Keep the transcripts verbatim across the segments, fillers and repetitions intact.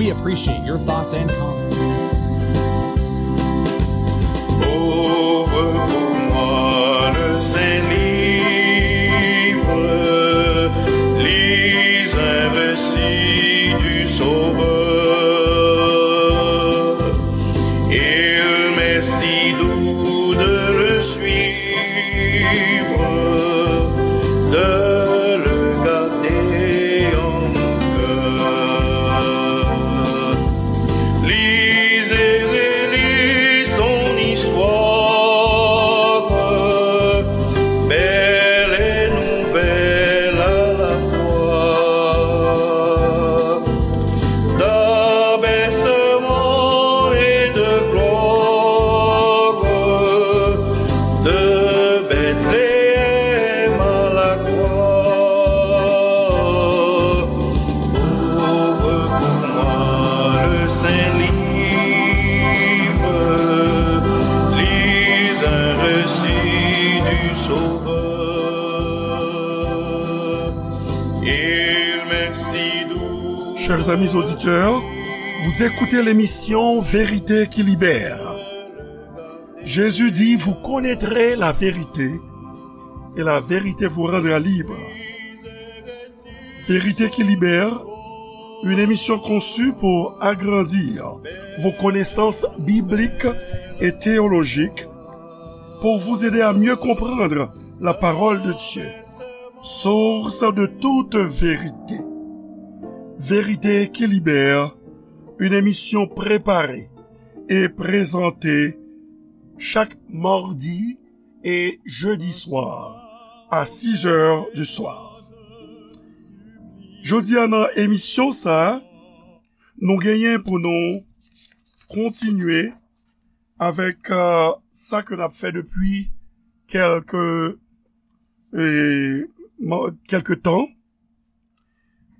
We appreciate your thoughts and comments. Ouvre pour moi le saint livre, lis un récit du Sauveur. Il m'est si doux de le suivre, de le garder en mon cœur. Lis et relis son histoire, belle et nouvelle à la fois. D'abaissement et de gloire, de Bethléem à la croix. Ouvre pour moi le saint livre, lis un récit du Sauveur. Il m'est si doux. Chers amis auditeurs, vous écoutez l'émission Vérité qui libère. Jésus dit, vous connaîtrez la vérité et la vérité vous rendra libre. Vérité qui libère, une émission conçue pour agrandir vos connaissances bibliques et théologiques, pour vous aider à mieux comprendre la parole de Dieu, source de toute vérité. Vérité qui libère, une émission préparée et présentée chaque mardi et jeudi soir à six heures du soir. Jodi a nan emisyon sa, nou genyen pou nou kontinye avèk, euh, sa ke n ap fè depi kèlke, eh, mo-, kèlke tan,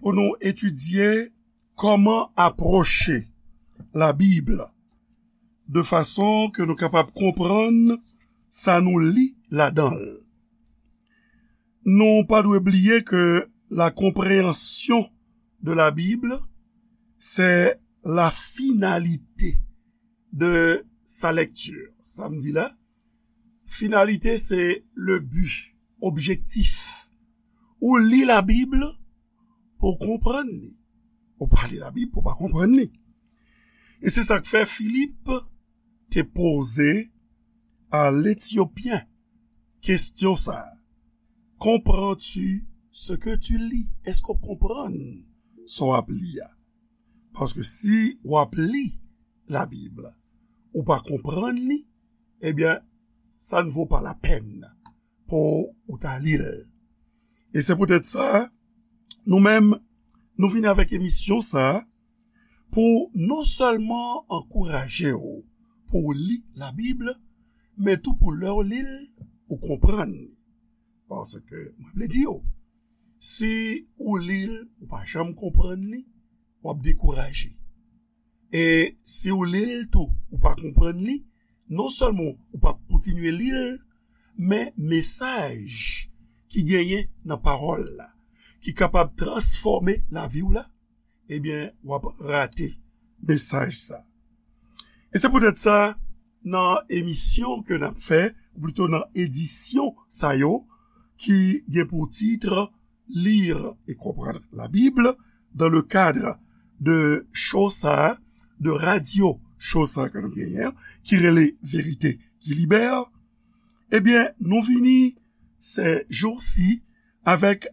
pou nou etidye kòman apwoche Labib de fason ke nou kapab konprann sa nou li ladan l. Nou pa dwe bliye ke la compréhension de la Bible, c'est la finalité de sa lecture. Sa m di la, finalité, c'est le but, objectif. Ou li Labib pou w konprann li. Ou pa li Labib pou w pa konprann li. E se sa k fè Filip te poze a Letyopyen kesyon sa a. Comprends-tu ce que tu lis? Èske w konprann sa w ap li a? Paske si w ap li Labib, ou pa konprann li, ebyen, ça ne vaut pas la peine pou ou ta li l. E se poutèt sa, nou menm, nou vini avèk emisyon sa a pou non sèlman ankouraje w pou w li Labib, men tou pou lè w li l, ou konprann li. Paske, mwen vle di w, si ou li l, ou pa janm konprann li, w ap dekouraje. E si w li l tou, ou pa konprann li, non sèlman ou p ap kontinye li l, men mesaj ki genyen nan pawòl la, ki kapab transfòme lavi w la, ebyen, w ap rate mesaj sa. E se poutèt sa, nan emisyon ke n ap fè, ou plito nan edisyon sa yo, ki gen pou tit Lire et comprendre la Bible dans le cadre de show sa, de radyo show sa ke nou genyen, ki rele Verite ki Libè, ebyen, nou vini se jou si avèk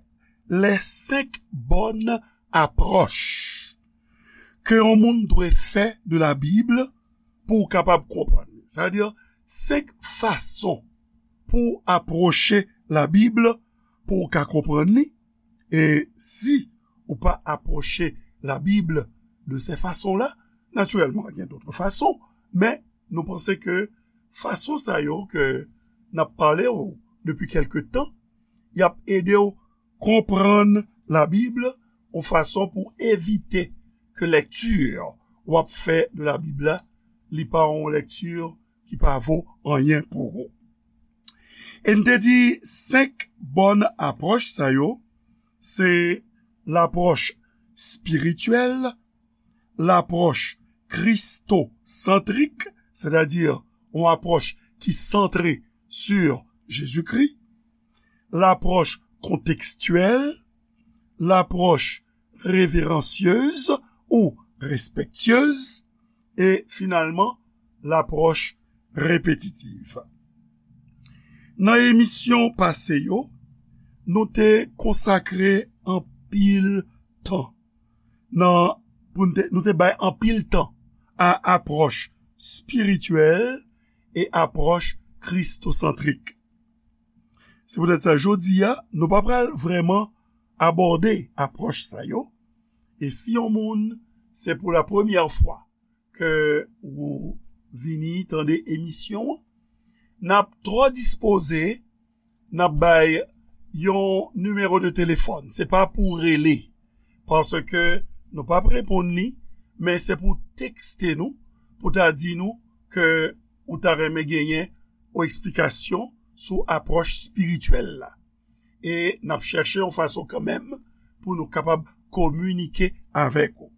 les cinq bonnes approches ke yon moun dwe fè de la Bib pou w kapab konprann li. Sa vle di, senk fason pou w apwoche la Bib pou w ka konprann li. E si ou pa apwoche la Bib de se fason la, natirèlman, gen dòt fason, men nou panse ke fason sa yo ke n ap pale w depi kèlke tan, y ap ede w konprann la Bib yon fason pou evite ke lèkti w ap fè de la Bib la, li pa yon lèkti ki pa vo anyen pou ou. E n te di senk bòn apwòch sa yo, se lapwòch espirityèl, lapwòch kristosantrik, sètadi yon apwòch ki santre sur Jezikri, lapwòch kontekstyèl, lapwòch reveransyez ou respektyez, e finalman, lapwòch repetitiv. Nan emisyon pase yo, nou te konsakre anpil tan nan, pou nou te, nou te bay anpil tan a apwòch espirityèl e apwòch kristosantrik. Se poutèt sa, jodi a, nou pa pral vrèman abòde apwòch sa yo. E si yon moun, se pou la premyè fwa ke ou vini tande emisyon an, n ap twò dispoze, n ap bay yon nimewo de telefòn. Se pa pou rele, paske nou p ap reponn li, men se pou tekste nou, pou ta di nou ke ou ta renmen genyen yon eksplikasyon sou apwòch espirityèl la. E n ap chèche yon fason kanmenm pou nou kapab kominike avèk ou.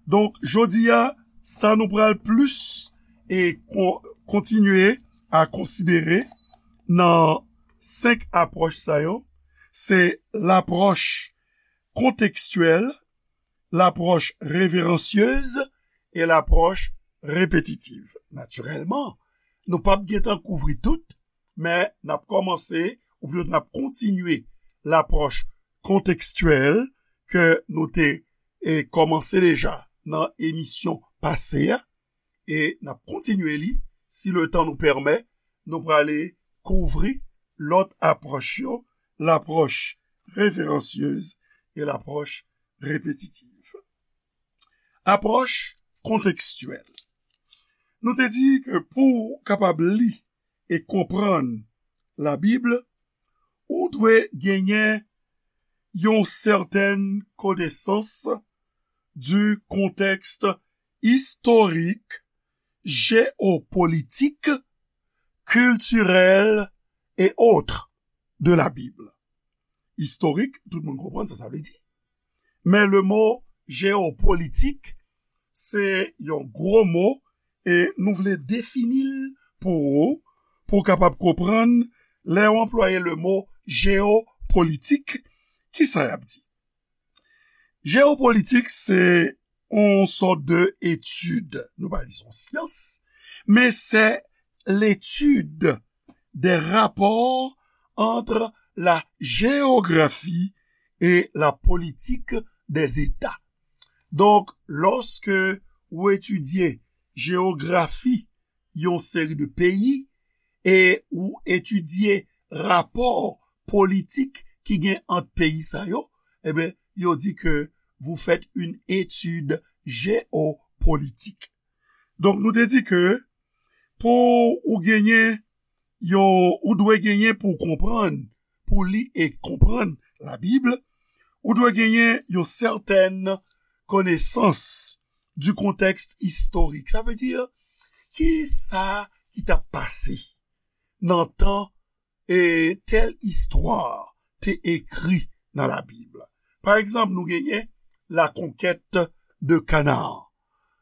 Donk, jodi a, sa nou pral plis e kon-, kontinye a konsidere nan senk apwòch sa yo, se lapwòch kontekstyèl, lapwòch reveransyez e lapwòch repetitiv. Natirèlman, nou p ap gentan kouvri tout, men n ap kòmanse, oubyen n ap kontinye lapwòch kontekstyèl ke nou te, e, kòmanse deja nan emisyon pase a, e n ap kontinye li, si letan nou pèmèt, nou prale kouvri lòt apwòch yo, lapwòch reveransyez e lapwòch repetitiv. Apwòch kontekstyèl. Nou te di ke pou w kapab li e konprann Labib, ou dwe genyen yon sètèn konesans du contexte historique, géopolitique, culturel et autres de la Bible. Istorik, tout moun konprann sa sa vle di. Men le mo jewopolitik, se yon gwo mo, e nou vle defini l pou ou, pou w kapab konprann lè w anplwaye le mo jewopolitik, ki sa y ap di. Jewopolitik, se yon sòt de etid, nou pa di se yon syans, men se l'étude des rapports entre la géographie et la politique des États. Donk, lòske ou etidye jewografi yon seri de peyi e ou etidye rapò politik ki gen ant peyi sa yo, ebyen, yo di ke vous faites une étude géopolitique. Donk, nou te di ke pou ou genyen yon, ou dwe genyen pou w konprann, pou li e konprann Labib, ou dwe genyen yon sètèn konesans du contexte historique. Sa vle di, ki sa ki t ap pase nan tan e tèl istwa te ekri nan Labib. Pa egzanp, nou genyen la conquête de Canaan.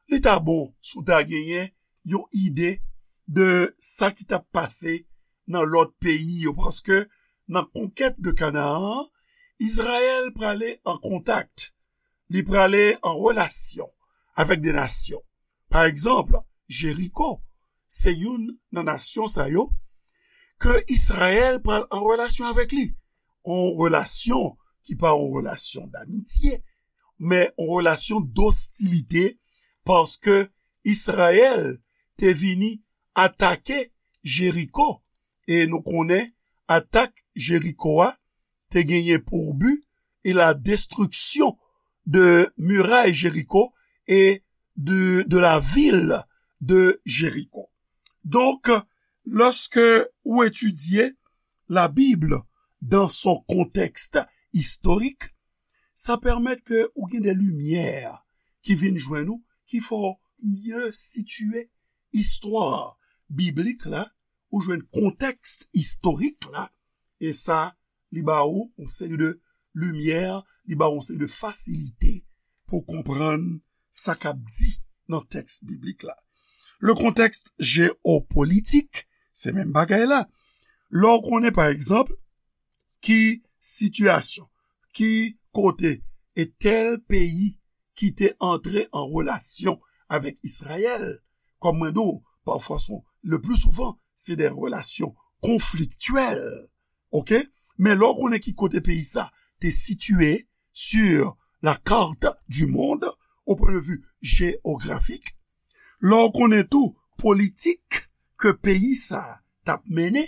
Li ta bon si w ta genyen yon ide de sa ki t ap pase nan lòt peyi yo, paske nan konkèt de Kanaan an, Izrayèl prale an kontak, li prale an relasyon avèk de nasyon. Pa egzanp, Jeriko, se youn nan nasyon sa yo ke Izrayèl pral an relasyon avèk li. Yon relasyon ki pa yon relasyon damitye, men yon relasyon dostilite, paske Izrayèl te vini atake Jeriko, e nou konnen atak Jeriko a te genyen pou bi e la destriksyon de miray Jeriko e de, de la vil de Jeriko. Donk, lòske ou etidye Labib dans son contexte historique, sa pèmèt ke ou gen de limyè ki vin jwenn ou, ki fè w mye sitiye istwa biblik la, ou jwenn kontèks istorik la, e sa, li ba ou yon seri de limyè, li ba ou yon seri de fasilite pou konprann sa k ap di nan tèks biblik la. Le contexte géopolitique, se menm bagay la. Lè w konnen, pa egzanp, ki sitiyasyon, ki kote e tèl peyi ki te antre an relasyon avèk Izrayèl, kòm mwen di w, pafwa, le plus souvent, se de relasyon konfliktyèl, oke? Men lè w konnen ki kote peyi sa te sitiye sur la carte du monde, au point de vue géographique, lè w konnen tou politik ke peyi sa t ap mennen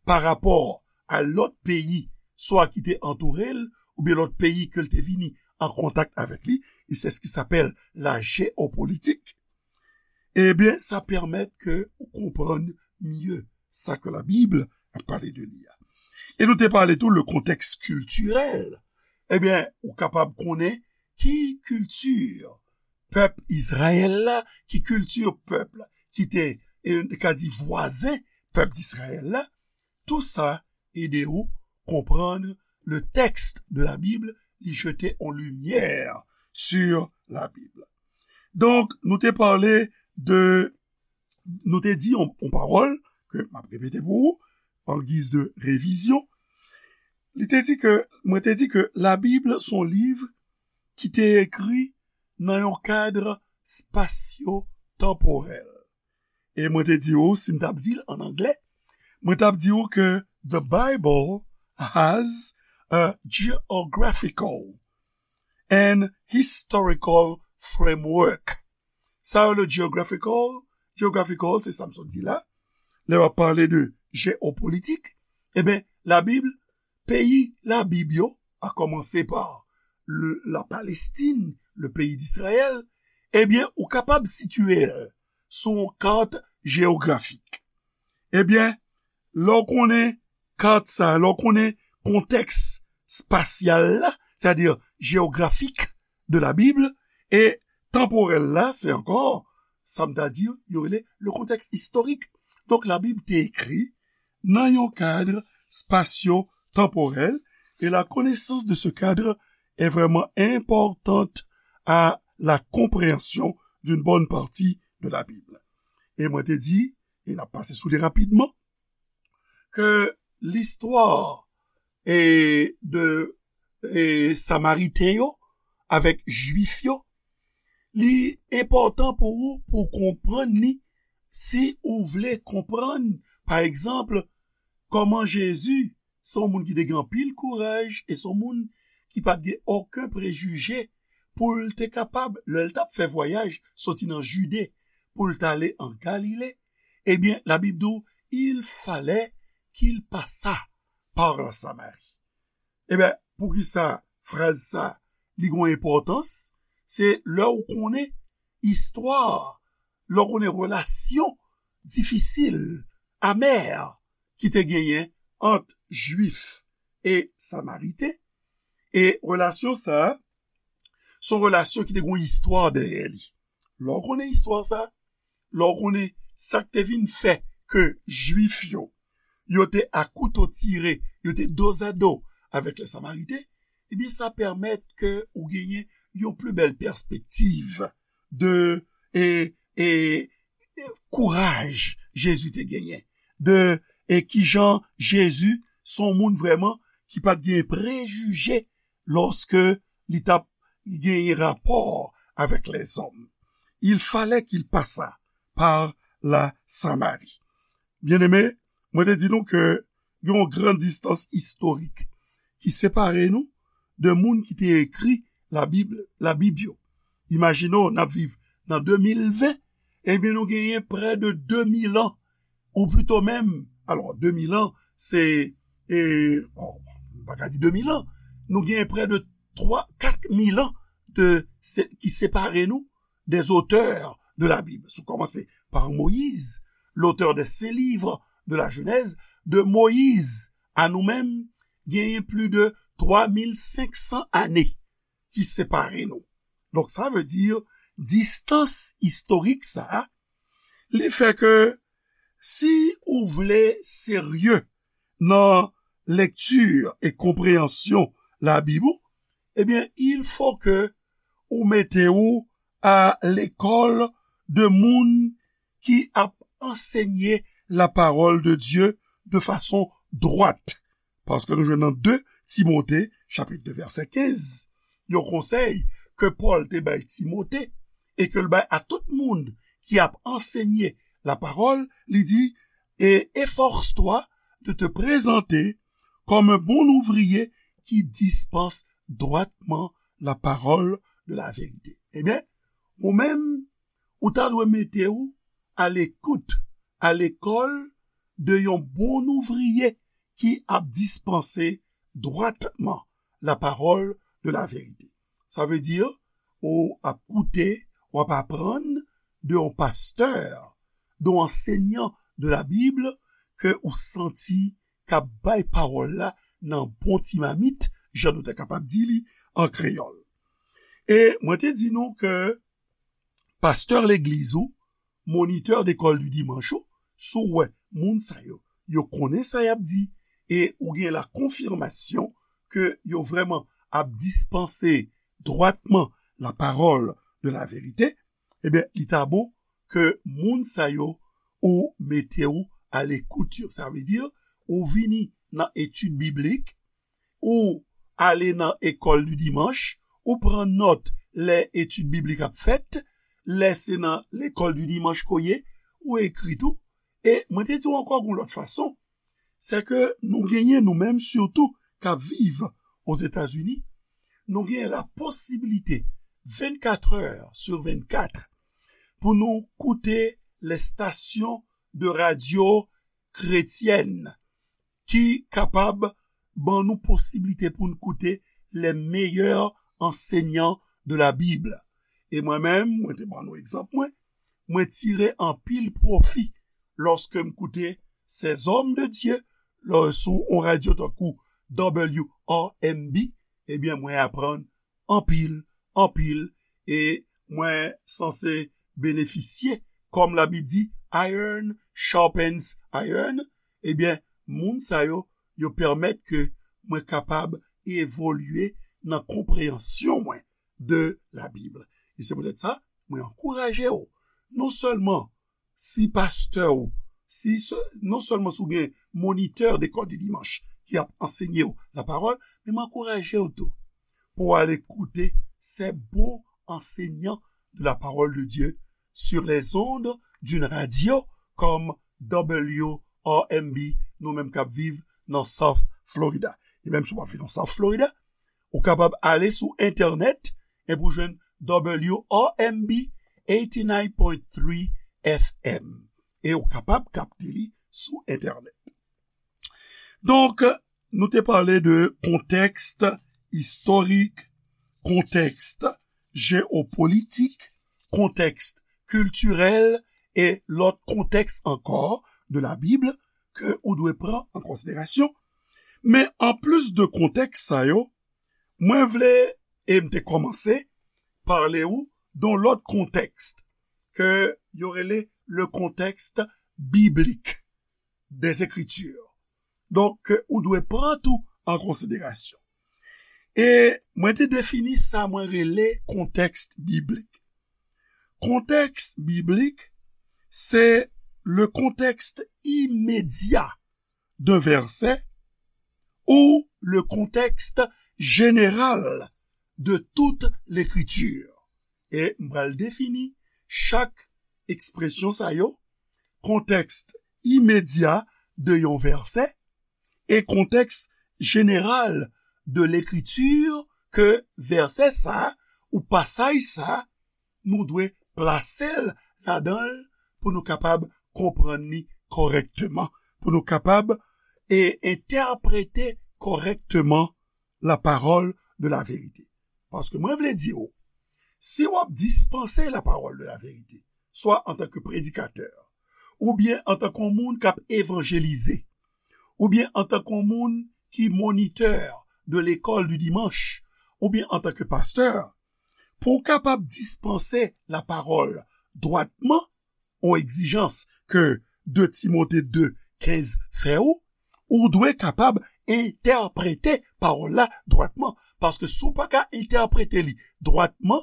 pa rapò a lòt peyi, swa ki te antoure l, oubyen lòt peyi ke l te vini an kontak avèk li, e c'est ce qui s'appelle la géopolitique, ebyen, sa pèmèt ke ou konprann mye sa ke Labib ap pale de li a. E nou te pale tou le contexte culturel. Ebyen, ou kapab konnen ki kilti pèp Izrayèl la, ki kilti pèp la, ki te, e, nou te ka di vwazen pèp Izrayèl la. Tou sa ede ou konprann le texte de la Bible, li jete on limyè sur la Bible. Donk, nou te pale de, nou te di on, on pawòl ke m ap repete pou ou, an giz de revizyon. Li te di ke, mwen te di ke Labib se on liv ki te ekri nan yon kad spasyo-tanporèl. E mwen te di ou, si m t ap di l an anglè, mwen t ap di ou ke the Bible has a geographical and historical framework. Sa yo le geographical, geographical, se sa m sot di la. Lè w ap pale de jewopolitik, e ben, Labib, peyi Labib yo, a kòmanse pa le, la Palestine, le pays d'Israël, ebyen, ou kapab sitiye l sou yon kat jewografik. Ebyen, lè w konnen kat sa, lè w konnen kontèks spasyal la, sètadi jewografik de la Bible, e tanporèl la, se ankò, sa m ta di, yo rele le contexte historique. Donk, Labib te ekri nan yon kad spasyo-tanporèl, et la connaissance de ce cadre est vraiment importante à la compréhension d'une bonne partie de la Bible. E mwen te di, e n ap pase sou li rapidman, ke listwa e de e Samariten yo avèk Jwif yo, li enpòtan pou ou pou w konprann li si ou vle konprann, pa egzanp, kòman Jezi se yon moun ki te gen anpil kouraj e se yon moun ki pa t gen okenn prejije pou l te kapab, lè l t ap fè vwayaj soti nan Jide pou l t ale an Galile, ebyen, Labib di w, il fallait qu'il passât par la Samarie. Ebyen, poukisa fraz sa, li gen enpòtans? Se lè w konnen istwa, lè w konnen relasyon difisil, amè, ki te genyen ant Jwif e Samariten. E relasyon sa, se yon relasyon ki te gen yon istwa dèyè li. Lè w konnen istwa sa, lè w konnen sa k te vin fè ke Jwif yo, yo te a kouto tire, yo te dozado avèk lè Samariten, ebyen, sa pèmèt ke ou genyen yon pli bèl pèspektiv de, e, e, e kouraj Jezi te genyen, de, e kijan Jezi se yon moun vrèman ki pa t gen prejije lòske li t ap genyen rapò avèk lèzòm. Il fallait qu'il passât par la Samarie. Byeneme, mwen te di nou ke gen yon gran distans istorik ki separe nou de moun ki te ekri Labib, Labib yo. Imajine w, n ap viv nan de mil ven, ebyen, nou genyen prè de de mil an, ou pito menm, alò, de mil an, se, e, bon, m pa ka di de mil an, nou genyen prè de twa, kat mil an de, se, ki separe nou des auteurs de la Bible. Si w kòmanse pa Moyiz, l'auteur des cinq livres de la Genèse, de Moyiz a nou menm, genyen plis de twa mil senk san ane ki separe nou. Donk, sa vle di, distans istorik sa a, li fè ke si ou vle serye nan lekti e konpreyansyon Labib ou, ebyen, il fo ke ou mete ou a lekòl de moun ki ap ansenye la parole de Dieu de façon droite. Paske nou jwenn nan de Timote, chapit de, vèsè kenz, yon konsèy ke Pòl te bay Timote e ke l bay a tout moun ki ap ansenye la parole, li di, et efforce-toi de te présenter comme un bon ouvrier qui dispense droitement la parole de la vérité. Ebyen, ou menm, ou ta dwe mete w a lekout, a lekòl de yon bon ouvriye ki ap dispanse dwatman la parole de la vérité. Sa vle di, ou ap koute, w ap aprann de yon pastè, de yon ansenyan de la Bible ke ou santi k ap bay pawòl la nan bon ti mamit, jan nou ta kapab di li an kreyòl. E mwen te di nou ke pastè legliz ou, monitè dekòl di dimanch ou, si w wè moun sa yo, yo konnen sa y ap di, e ou gen la konfimasyon ke yo vrèman ap dispanse dwatman la parole de la vérité, ebyen, li ta bon ke moun sa yo ou mete w a lekout yo. Sa vle di, ou vini nan etid biblik, ou ale nan ekòl di dimanch, ou pran nòt lè etid biblik ap fèt, lè se nan lekòl di dimanch ke w ye, ou ekri tou. E mwen te di w ankò yon lòt fason, se ke nou genyen nou menm sitou k ap viv Ozetazini, nou genyen la posibilite vennkat è sou vennkat pou nou koute les stations de radio chrétiennes ki kapab ban nou posiblite pou n koute les meilleurs enseignants de la Bible. E mwen menm, mwen te ban nou egzanp mwen, mwen tire anpil pwofi lòske m koute ces hommes de Dieu lò sou yon radyo tankou W R M B, ebyen, mwen aprann anpil, anpil, e mwen sanse benefisye, kòm Labib di, iron sharpens iron, ebyen, moun sa yo, yo pèmèt ke mwen kapab evolye nan konpreyansyon mwen de Labib. E se poutèt sa, mwen ankouraje w, non sèlman si pastè w, si se, non sèlman si w gen monitè dekòl di dimanch ki ap ansenye w lapawòl, men m ankouraje w tou pou w ale koute ces bons enseignants de la parole de Dieu sur les ondes d'une radio comme W R M B, nou menm k ap viv nan South Florida. E menm si w pa viv nan South Florida, ou kapab ale sou entènèt epi w jwenn W R M B eighty-nine point three F M. E ou kapab kapte li sou entènèt. Donk, nou te pale de kontèks istorik, kontèks jewopolitik, kontèks kiltirèl e lòt kontèks ankò de la Bib ke ou dwe pran an konsiderasyon. Men anplis de kontèks sa yo, mwen vle, e m te kòmanse, pale w de yon lòt kontèks ke yo rele le contexte biblique des Écritures. Donk, ke ou dwe pran tou an konsiderasyon. E mwen te defini sa mwen rele kontèks biblik. Kontèks biblik, se le contexte immédiat d'un verset ou le contexte général de toute l'écriture. E m pral defini chak ekspresyon sa yo, kontèks imedya de yon vèsè e kontèks jeneral de lekriti ke vèsè sa ou pasaj sa, nou dwe plase l ladan l pou nou kapab konprann li kòrèkteman, pou nou kapab e entèprete kòrèkteman la parole de la vérité. Paske mwen vle di w, si w ap dispanse la parole de la vérité, swa antanke predikatè, oubyen antanke yon moun k ap evanjelize, oubyen antanke yon moun ki monitè de lekòl di dimanch, oubyen antanke pastè, pou w kapab dispanse la parole dwatman, yon egzijans ke de Timote de kenz fè w, ou dwe kapab entèprete pawòl la dwatman. Paske si w pa ka entèprete li dwatman,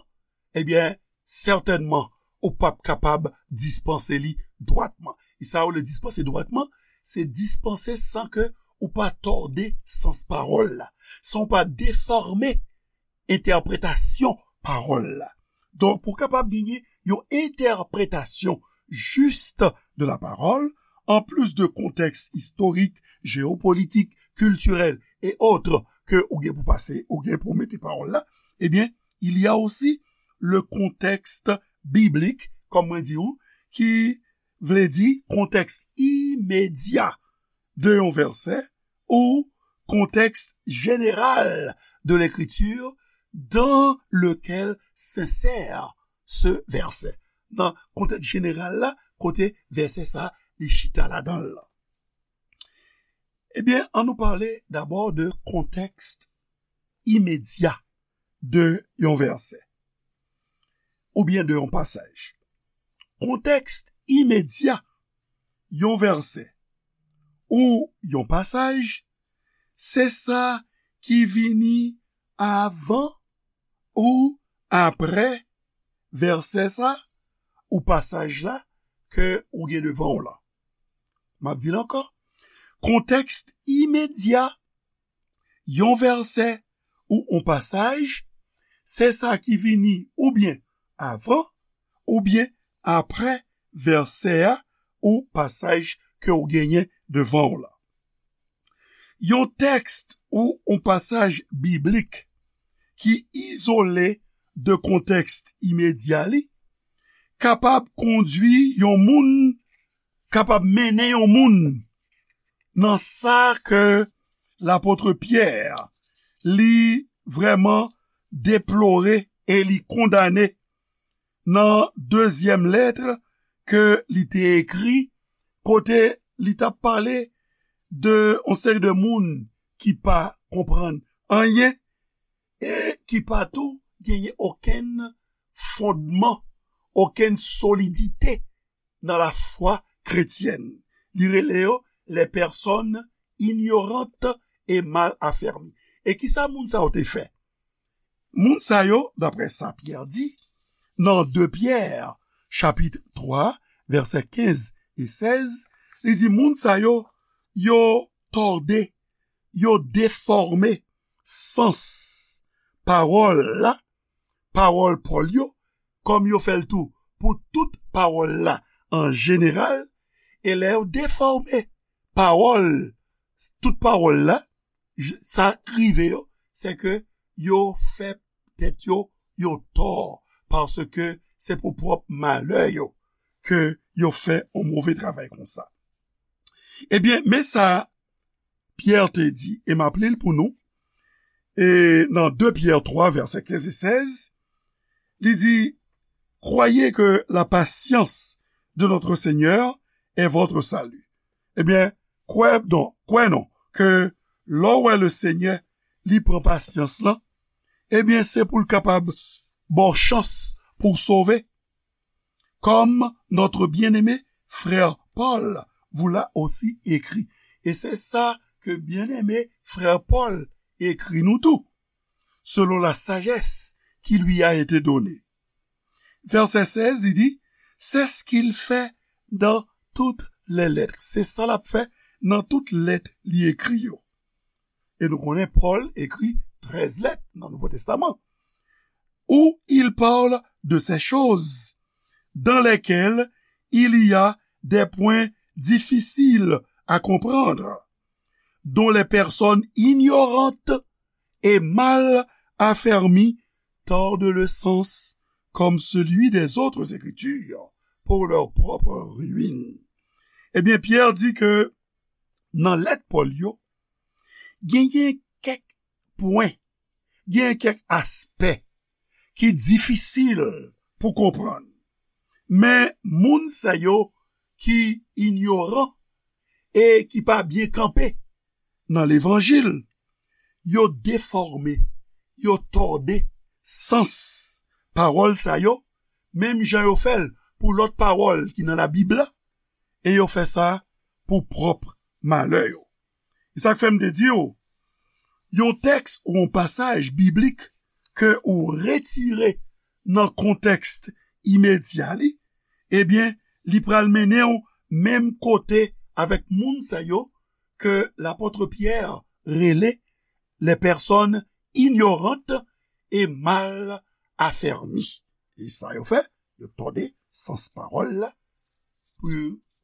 ebyen, sètènman, ou p ap kapab dispanse li dwatman. E sa yo rele dispanse dwatman, se dispanse san ke ou pa tòde sans pawòl la, san ou pa defòme entèpretasyon pawòl la. Donk, pou w kapab genyen yon entèpretasyon jis de la parole, en plus de contexte historique, géopolitique, culturel et autres ke ou gen pou pase, ou gen pou mete pawòl la, ebyen, il y a aussi le contexte biblique, kòm mwen di ou, ki vle di kontèks imedya de yon vèsè ou contexte général de l'écriture dans lequel s'insère ce verset. Nan kontèks jeneral la, kote vèsè sa li chita ladan l. Ebyen, ann nou pale dabò de kontèks imedya de yon vèsè oubyen de yon pasaj. Kontèks imedya yon vèsè ou yon pasaj, se sa ki vini avan ou apre vèsè sa ou pasaj la ke ou gen devan w lan. M ap di l ankò. Kontèks imedya yon vèsè ou yon pasaj, se sa ki vini oubyen avan oubyen apre vèsè a ou pasaj ke w genyen devan w lan. Yon tèks ou yon pasaj biblik ki izole de kontèks imedya li kapab kondwi yon moun, kapab mennen yon moun nan sa ke lapot Pyè li vrèman deplore e li kondane nan dezyèm lèt ke li te ekri, kote li t ap pale de yon seri de moun ki pa konprann anyen e ki pa tou genyen okenn fondman, okenn solidite nan lafwa kretyèn. Li rele yo les personnes ignorantes et mal affermies. E kisa moun sa yo te fè? Moun sa yo, daprè sa Pyè di, nan de Pyè, chapit twa, vèsè kenz e sèz, li di moun sa yo, yo tòde, yo defòme sans pawòl la, pawòl Pòl yo, kòm yo fè l tou pou tout pawòl la an jeneral, e lè yo defòme pawòl, tout pawòl la, j- sa k rive yo, se ke yo fè tèt yo yon tò, paske se pou pwòp malè yo ke yo fè yon move travay konsa. Ebyen, men sa Pyè te di, e m ap li l pou nou, e nan de Pyè twa, vèsè kenz e sèz, li di, Croyez que la patience de notre Seigneur est votre salut. Ebyen, kwè non, kwè non, ke lè w wè le Senyè, li pran pasyans lan, ebyen, se pou l kapab ba w chans pou w sove. Comme notre bien-aimé frère Paul vous l'a aussi écrit. E se sa ke byeneme frè Pòl ekri nou tou, selon la sagesse qui lui a été donnée. Vèsè sèz, li di, c'est ce qu'il fait dans toutes les lettres. Se sa l ap fè nan tout lèt li ekri yo. E nou konnen Pòl ekri trèz lèt nan Nouvo Testaman. Où il parle de ces choses dans lesquelles il y a des points difficiles à comprendre, dont les personnes ignorantes et mal affermies tordent le sens comme celui des autres écritures pour leur propre ruine. Ebyen, Pyè di ke nan lèt Pòl yo, genyen kèk pwen, genyen kèk aspè ki difisil pou konprann. Men moun sa yo ki inyoran e ki pa byen kanpe nan levanjil, yo defòme, yo tòde sans pawòl sa yo, menm jan yo fè l pou lòt pawòl ki nan Labib la, e yo fè sa pou pwòp malè yo. E sa k fè m te di w, yon tèks ou yon pasaj biblik ke ou retire nan kontèks imedya li, ebyen, li pral mennen w menm kote avèk moun sa yo ke lapòt Pyè rele les personnes ignorantes et mal affermies. E sa yo fè, yo tòde sans pawòl la pou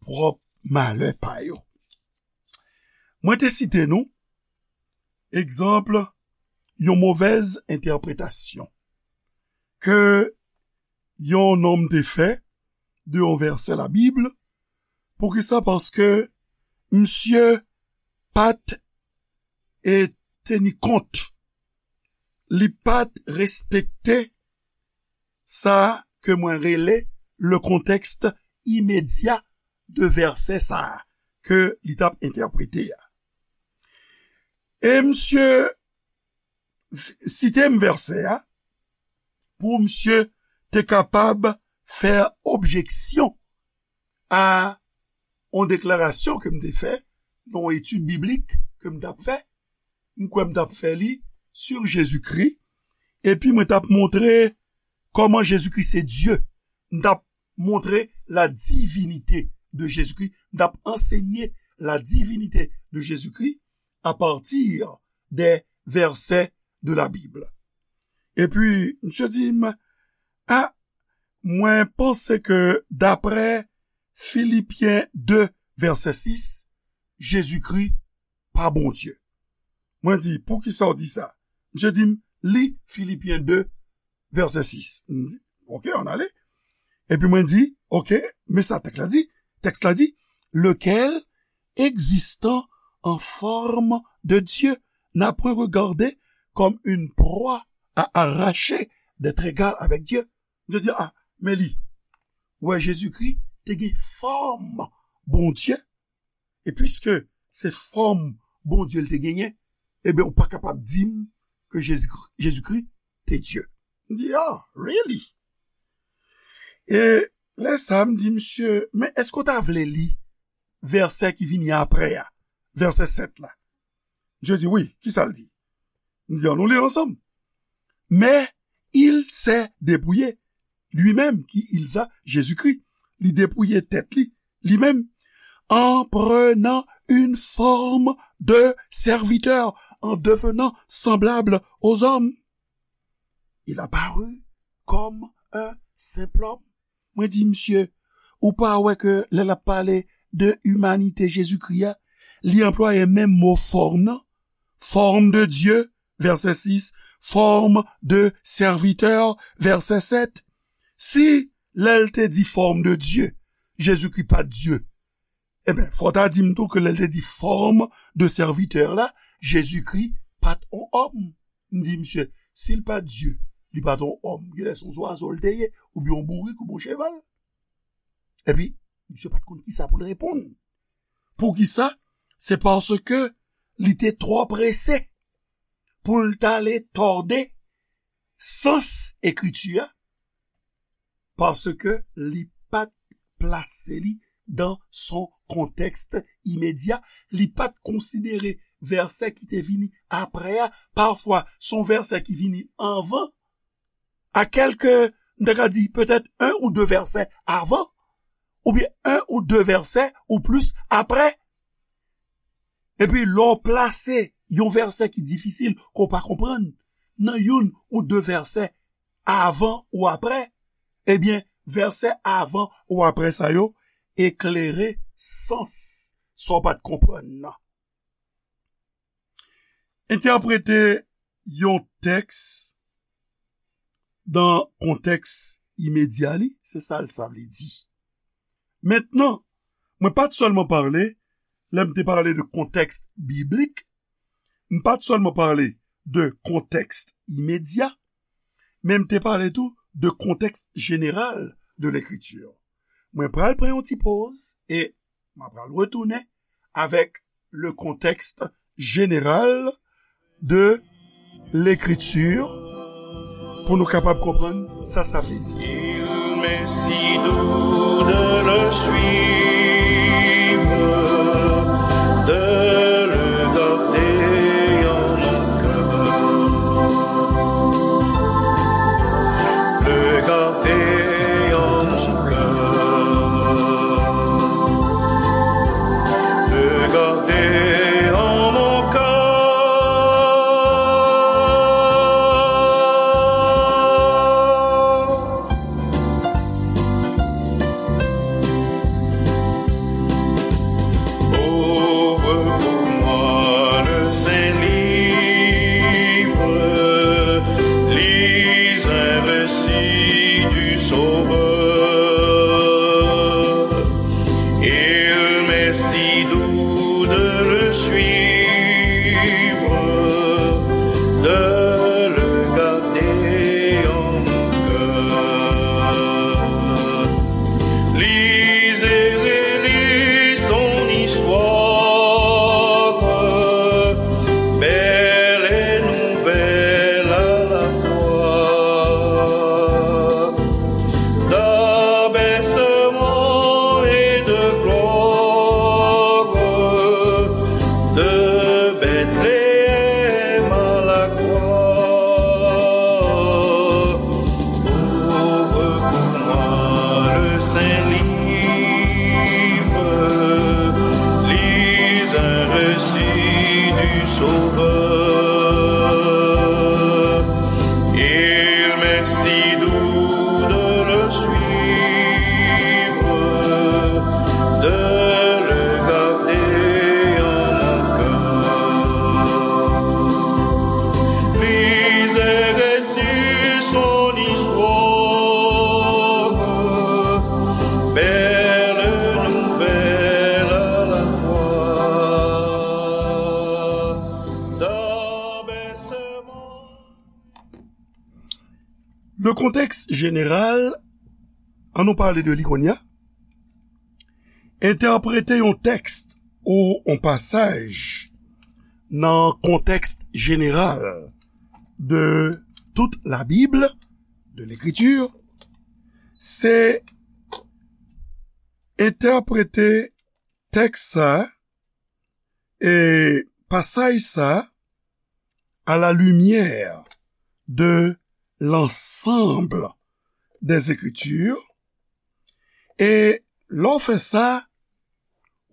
pwòp malè pa yo. Mwen te site nou egzanp yon movèz entèpretasyon ke yon nonm te fè de yon vèsè Labib. Poukisa? Paske misye pa t e teni kont, li pa t respekte sa ke mwen rele le contexte immédiat de vèsè sa a ke li t ap entèprete a. E misye site m vèsè a pou misye te kapab fè objeksyon a yon deklarasyon ke m te fè nan yon etid biblik ke m t ap fè. M kwè m t ap fè li sur Jezikri, epi mwen t ap montre kòman Jezikri se Dye. M t ap montre la divinité de Jésus-Christ, m t ap ansenye la divinité de Jésus-Christ à partir des versets de la Bible. Epi, misye di m, a, mwen panse ke daprè Filipyen de, vèsè sis, Jezikri pa Bondye. Mwen di, poukisa w di sa? Misye di m, li Filipyen de, vèsè sis. M di, oke, ann ale. Epi mwen di, oke, men sa tèks la di. Tèks la di, lequel, existant en forme de Dieu, n'a point regardé comme une proie à arracher d'être égal avec Dieu. Misye di, a, men li, wè Jezikri te gen fòm Bondye, e piske se fòm Bondye l te genyen, ebyen, ou pa kapab di m ke Jezikri, Jezikri te Dye. M di, ah, really? E lè sa a, m di, misye, men èske w ta vle li vèsè ki vini apre a, vèsè sèt la? Misye di, wi, kisa l di? M di, ann nou li l ansanm. Mais il s'est dépouillé lui-même, ki il sa? Jezikri. Li depouye tèt li, li menm, en prenant une forme de serviteur, en devenant semblable aux hommes. Il apparut comme un simple homme. Mwen di, misye, ou pa wè ke lè l ap pale de imanite Jezikri a, li anplwaye menm mo fòm nan? Forme de Dieu, vèsè sis, forme de serviteur, vèsè sèt. Si lè l te di forme de Dieu, Jezikri pa t Dye, ebyen, fò w ta di m tou ke lè l te di forme de serviteur la, Jezikri pa t on òm. M di, misye, si l pa t Dye, li pa t on òm, genlè se yon zwazo l te ye, oubyen yon bourik, oubyen yon cheval. Epi, misye pa t konn kisa pou l reponn. Poukisa? Se paske li te twò prese pou l t ale tòde sans ekriti a, paske li pa t plase li dan son kontèks imedya, li pa t konsidere vèsè ki te vini apre a, pafwa se yon vèsè ki vini anvan, a kèlke, m ta ka di, petèt en ou de vèsè avan, oubyen en ou de vèsè ou plis apre. Epi lè w plase yon vèsè ki difisil, ke w pa konprann, nan youn ou de vèsè avan ou apre, ebyen, vèsè avan ou apre sa yo eklere sans sa w pa t konprann nan. Entèprete yon tèks dan kontèks imedya li, se sa l sa vle di. Mentnan, mwen pa t sèlman pale, lè m te pale de kontèks biblik, m pa t sèlman pale de kontèks imedya, men m te pale tou de kontèks jeneral de lekriti. Mwen pral pran yon ti poz e m a pral retounen avèk le contexte général de l'écriture pou nou kapab konprann sa sa vle di. Il m'est si doux de le suivre, de le garder en mon cœur. Le Saint livre, lis un récit du Sauveur. Il m'est si doux de le suivre, de le garder en mon cœur. Lis et récit son histoire, belle nouvelle à la fois. Dans bercement. Le contexte général, ann nou pale de li kounye a. Entèprete yon tèks ou yon pasaj nan kontèks jeneral de tout la Bible, de l'écriture, se entèprete tèks sa, e pasaj sa, à la lumière de l'ensemble des Écritures, e lè w fè sa,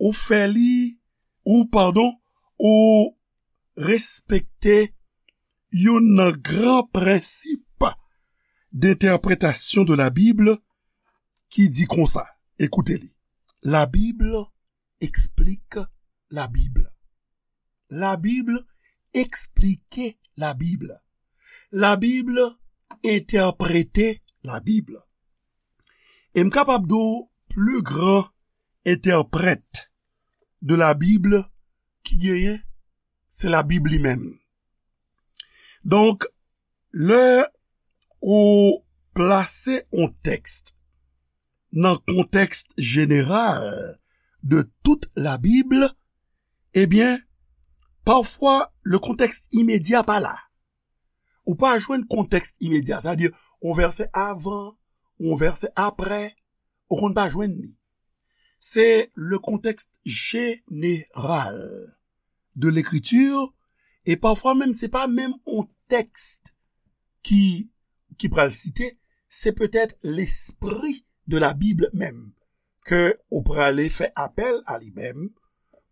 ou fè li, ou, padon, ou respekte youn nan gran prensip d'entèpretasyon de la Bible ki di konsa, ekoute li, La Bible explique la Bible. La Bible explique la Bible. La Bible entèprete la Bible. E m kapab di w pli gran entèprèt de la Bible ki genyen, se la Bib li menm. Donk, lè ou plase yon tèks nan kontèks jeneral de tout la Bible, ebyen, pafwa, le contexte immédiat pa la. Ou pa jwenn kontèks imedya, sa vle di, yon vèsè avan, yon vèsè aprè, ou konn pa jwenn li. Se le contexte général de l'écriture, e pafwa menm, se pa menm yon tèks ki, ki pral site, se petèt l'esprit de la Bible menm, ke ou prale fè apèl a li menm,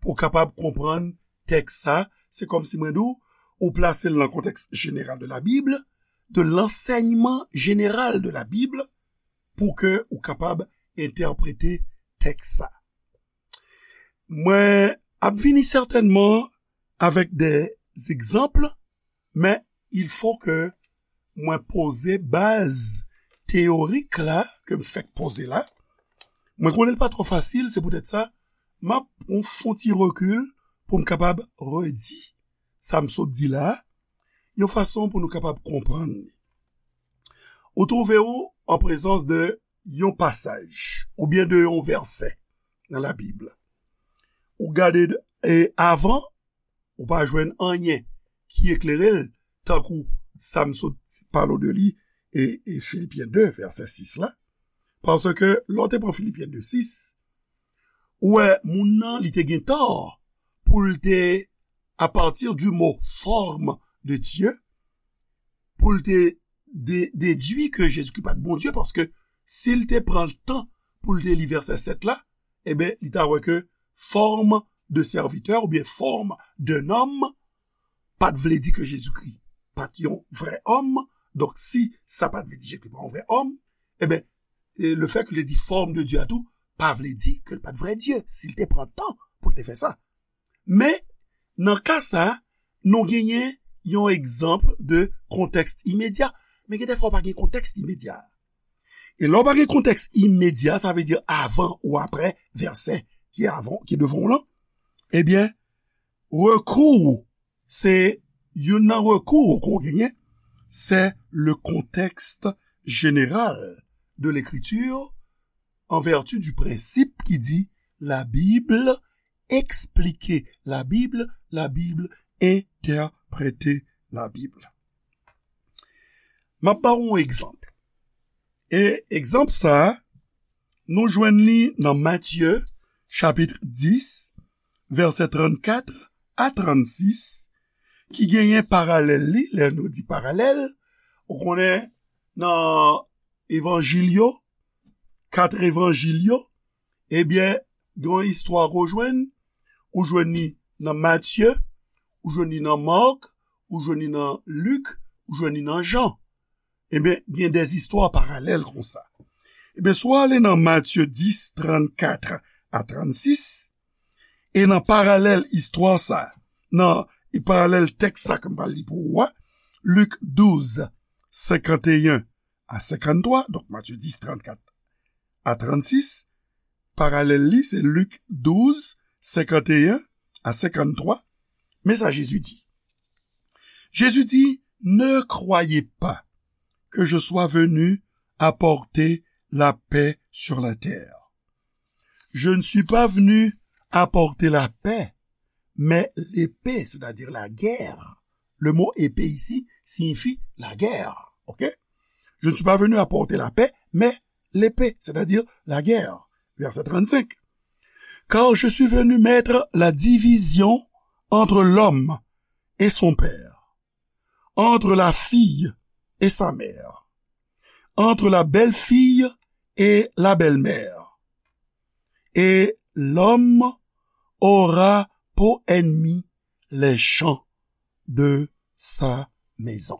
pou w kapab konprann tèks sa, se kòmsi mwen di w, ou plase l nan kontèks jeneral de la Bible, de l'enseignement général de la Bible, pou ke ou kapab entèprete tèks sa. Mwen ap vini sètènman avèk de egzanp, men il faut que mwen poze baz teyorik la, ke m fèk poze la. Mwen konnen l pa twò fasil, se poutèt sa, m ap pran fon ti rekil pou m kapab redi sa m sot di la, yon fason pou nou kapab konprann li. Ou twouve w an prezans de yon pasaj, oubyen de yon vèsè nan Labib. Ou gade, e, avan, ou pa jwenn anyen ki eklere l, tankou sa m sot pale w de li, e, e Filipyen de, vèsè sis la. Paske, lè w te pran Filipyen de sis, ou wè, moun nan, li te gen tò pou l te, à partir du mot forme de Dieu, pou l te de-, dedui ke Jezikri pa t Bondye, paske si l te pran tan pou l te li vèsè sèt la, eben, li ta wè ke forme de serviteur oubyen forme d'un homme pa t vle di ke Jezikri pa t yon vrè òm. Donk, si sa pa t vle di Jezikri pa yon vrè òm, eben, e le fait que l te di forme de Dieu a tou, pa vle di ke l pa t vrè Dye, si l te pran tan pou l te fè sa. Men, nan ka sa, nou genyen yon egzanp de kontèks imedya, men gen de fwa w pa gen kontèks imedya. E lè w pa gen kontèks imedya, sa vle di avan ou aprè vèsè ki avan, ki devan w lan, ebyen, rekou w, se youn nan rekou ke w genyen, c'est le contexte général de l'écriture, en vertu du principe ki di la Bible explique la Bible, la Bible interprète la Bible. M ap ba w yon egzanp. E egzanp sa a, nou jwenn li nan Matye, chapit dis, vèsè trannkat a trannsis, ki genyen paralèl li, lè nou di paralèl, ou konnen nan evanjil yo, kat evanjil yo, ebyen, gen yon istwa ke w jwenn, ou jwenn li nan Matye, ou jwenn li nan Mak, ou jwenn li nan Lik, ou jwenn li nan Jan. Ebyen, gen de istwa paralèl konsa. Ebyen, si w ale nan Matye dis, trannkat a trannsis, e nan paralèl istwa sa, nan e paralèl tèks sa ke m pral li pou ou a, Lik douz, senkanteyen a senkanntwa, donk Matye dis, trannkat a trannsis, paralèl li, se Lik douz, senkanteyen a senkanntwa. Men sa Jezi di. Jezi di, ne croyez pas que je sois venu apporter la paix sur la terre. Je ne suis pas venu apporter la paix, mais l'épée, c'est-à-dire la guerre. Le mot épée ici signifie la guerre. Ok? Je ne suis pas venu apporter la paix, mais l'épée, c'est-à-dire la guerre. Verset trente-cinq. Car je suis venu mettre la division entre l'homme et son père, entre la fille et sa mère, entre la belle-fille et la belle-mère. Et l'homme aura pour ennemi les gens de sa maison.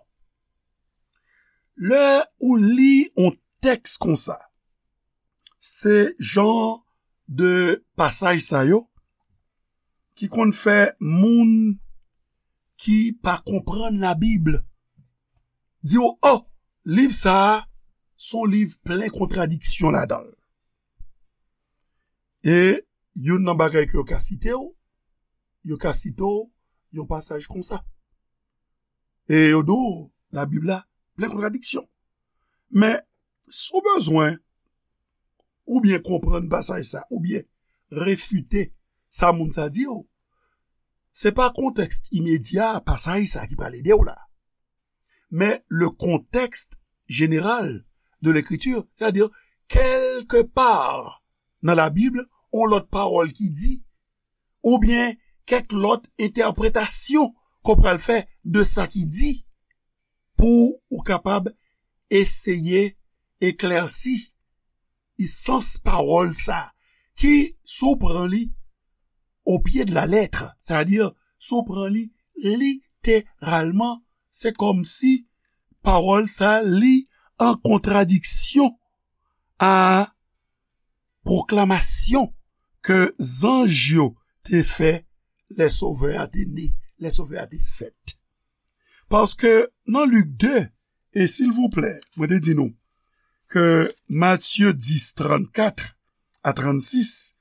Lè ou li yon tèks konsa, se jan de pasaj sa yo ki konn fè moun ki pa konprann Labib di w, "Oh, liv sa a, se yon liv plen kontradiksyon ladan l." E youn nan bagay ke yo ka site w, yo ka site w yon pasaj konsa. E yo di w, Labib la plen kontradiksyon. Men, si w bezwen oubyen konprann pasaj sa, oubyen refite sa moun sa di w, se pa kontèks imedya pasaj sa ki pral ede w la. Men le contexte général de l'écriture, c'est-à-dire, kèlke pa nan Labib, yon lòt pawòl ki di, oubyen kèk lòt entèpretasyon ke w pral fè de sa ki di, pou ou kapab eseye eklèsi sans pawòl sa, ki, si w pran li au pied de la lettre, c'est-à-dire, si w pran li literalman, se kòmsi pawòl sa li an kontradiksyon a pwoklamasyon ke zanj yo te fè lè Sovè a te ne, lè Sovè a te fèt. Paske nan Lik de, e silvouplè, mwen te di nou ke Matye dis, trannkat a trannsis,